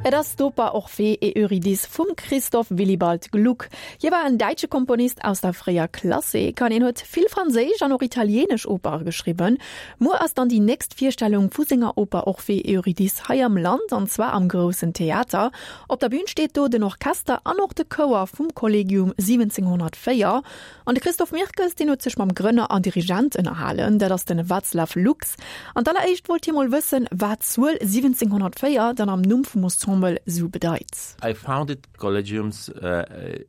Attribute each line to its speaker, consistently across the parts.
Speaker 1: Et ass d'Oper Orphée et Eurydice vum Christoph Willibald Gluck. Hie war en däitsche Komponist aus der fréier Klassik an hien huet vill franséisch an och italieenesch Opere geschriwwen. Muer ass dann déi nächst Virstellung vu senger Oper Orphée et Eurydice hei am Land, an zwar am Groussen Theater. Op der Bün steet do den Orchester an och de Chouer vum Collegium 1704. An de Christophe Mirkes, deen huet sech mam Grënner an Dirigent ënnerhalen, dat ass de Václav Luks. An d'alleréischt wollt hie mol wëssen, wat d'Zuel 1704 dann am Numm vum Ensemble sou bedeit.
Speaker 2: I founded Collegiums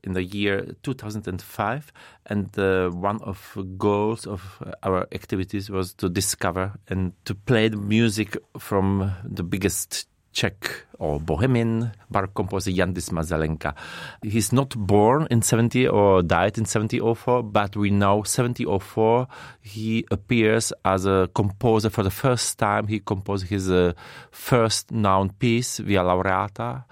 Speaker 2: in the year 2005 and one of goals of our activities was to discover and to play the music from the biggest Czech or Bohemian baroque composer Jan Dismas Zelenka. He's not born in 70 or died in 1704, but we know 1704 he appears as a composer for the first time. He composed his uh, first known piece, Via Laureata.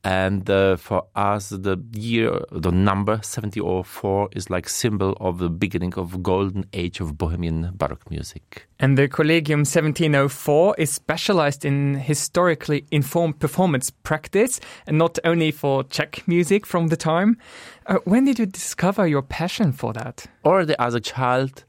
Speaker 2: And uh, for us, the year, the number 1704 is like symbol of the beginning of golden age of Bohemian Baroque music.
Speaker 3: And the Collegium 1704 is specialized in historically informed performance practice and not only for Czech music from the time. Uh, when did you discover your passion for that?
Speaker 2: Already as a child,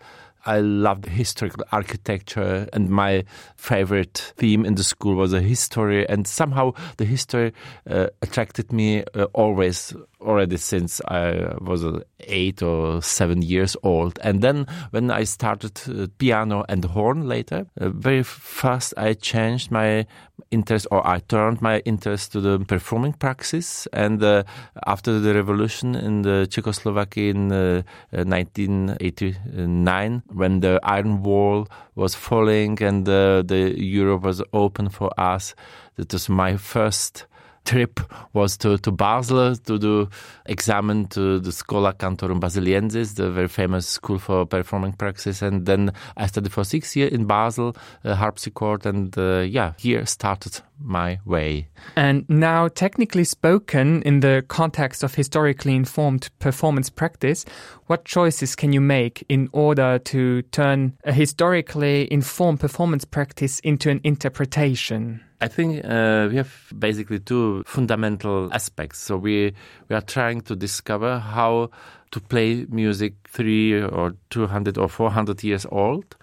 Speaker 2: I loved historical architecture and my favorite theme in the school was a history and somehow the history uh, attracted me uh, always already since I was uh, 8 or 7 years old. And then when I started uh, piano and horn later, uh, very fast I changed my interest or I turned my interest to the performing praxis and uh, after the revolution in the Czechoslovakia in uh, 1989 uh, when the Iron Wall was falling and uh, the Europe was open for us, that was my first trip was to, to Basel to do examine to the Schola Cantorum Basiliensis, the very famous school for performing praxis. And then I studied for six years in Basel, uh, harpsichord, and uh, yeah, here started my way.
Speaker 3: And now, technically spoken, in the context of historically informed performance practice, what choices can you make in order to turn a historically informed performance practice into an interpretation?
Speaker 2: I think uh, we have basically two fundamental aspects. So we, we are trying to discover how to play music 3 or 200 or 400 years old.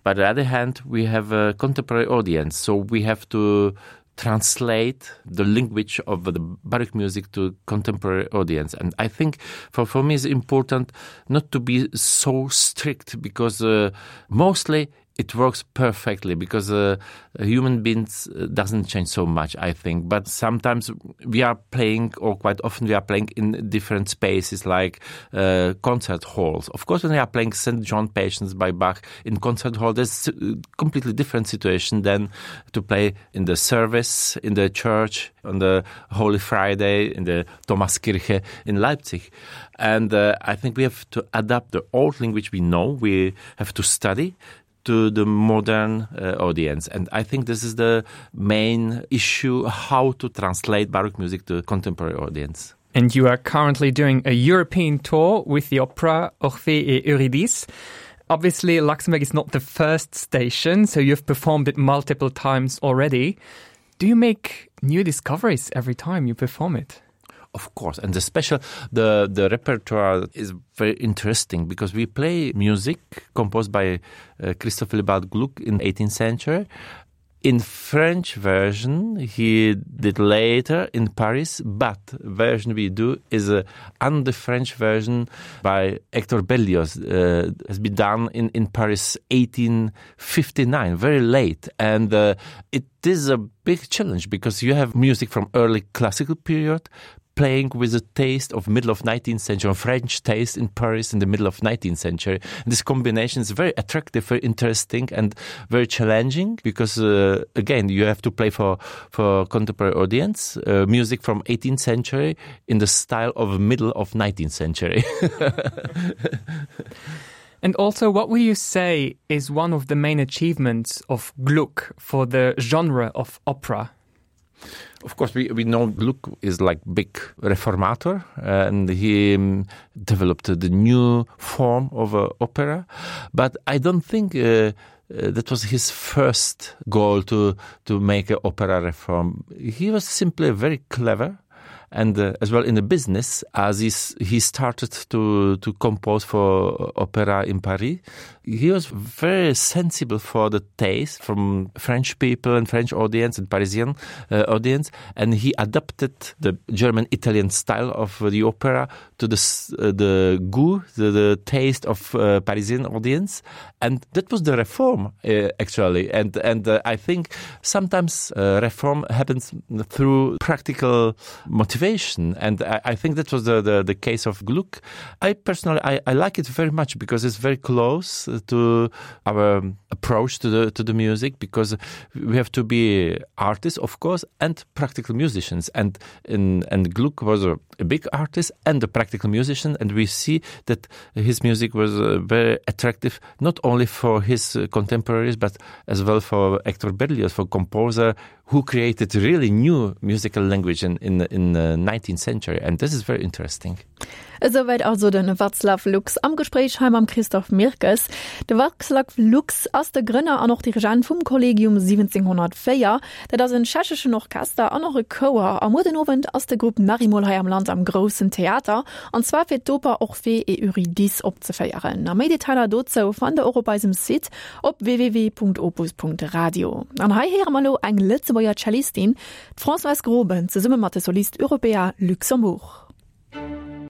Speaker 2: But on the other hand, we have a contemporary audience, so we have to translate the language of the baroque music to contemporary audience. And I think for, for me it's important not to be so strict because uh, mostly it works perfectly because uh, human beings uh, doesn't change so much I think but sometimes we are playing or quite often we are playing in different spaces like uh, concert halls of course when we are playing St. John Patience by Bach in concert hall there's a completely different situation than to play in the service in the church on the Holy Friday in the Thomaskirche in Leipzig and uh, I think we have to adapt the old language we know we have to study to the modern uh, audience. And I think this is the main issue, how to translate Baroque music to contemporary audience.
Speaker 3: And you are currently doing a European tour with the opera Orphée et Eurydice. Obviously, Luxembourg is not the first station, so you've performed it multiple times already. Do you make new discoveries every time you perform it?
Speaker 2: Of course, and the special the the repertoire is very interesting because we play music composed by uh, Christophe Lebald Gluck in 18th century. In French version he did later in Paris, but version we do is a under French version by Hector Berlioz uh, has been done in, in Paris 1859, very late and uh, it is a big challenge because you have music from early classical period, playing with the taste of middle of 19th century French taste in Paris in the middle of 19th century. And this combination is very attractive, very interesting and very challenging because uh, again you have to play for for contemporary audience uh, music from 18th century in the style of middle of 19th century.
Speaker 3: And also what will you say is one of the main achievements of Gluck for the genre of opera?
Speaker 2: Of course we, we know Gluck is like big reformator and he um, developed the new form of uh, opera but I don't think uh, uh, that was his first goal to to make an opera reform. He was simply very clever and uh, as well in the business as he, he started to to compose for opera in Paris he was very sensible for the taste from French people and French audience and Parisian uh, audience and he adapted the German Italian style of the opera to the uh, the goût the, the taste of uh, Parisian audience and that was the reform uh, actually and and uh, I think sometimes uh, reform happens through practical motivation and I, I think that was the, the the case of Gluck I personally I, I like it very much because it's very close to our approach to the to the music because we have to be artists of course and practical musicians and in and Gluck was a, a big artist and a practical musician and we see that his music was uh, very attractive not only for his uh, contemporaries but as well for Hector Berlioz for composer who created really new musical language in in in the 19th century and this is very interesting.
Speaker 1: Esouwäit also de Václav Luks am Gespréich hei mam Christophe Mirkes. De Václav Luks ass de Grënner an och Dirigent vum Collegium 1704. Dat ass en tschecheschen Orchester an och e Chouer. A muer den Owend ass de Grupp nach eemol hei am Land am Groussen Theater, an zwar fir d'Oper Orphée et Eurydice opzeféieren. A méi Detailer dozou fannt der och op eisem Site op www.opus.radio. An hei héiere mer elo eng Lëtzebuerger Cellistin, d'Françoise Groben, zesumme mat de Solistes Européens Luxembourg.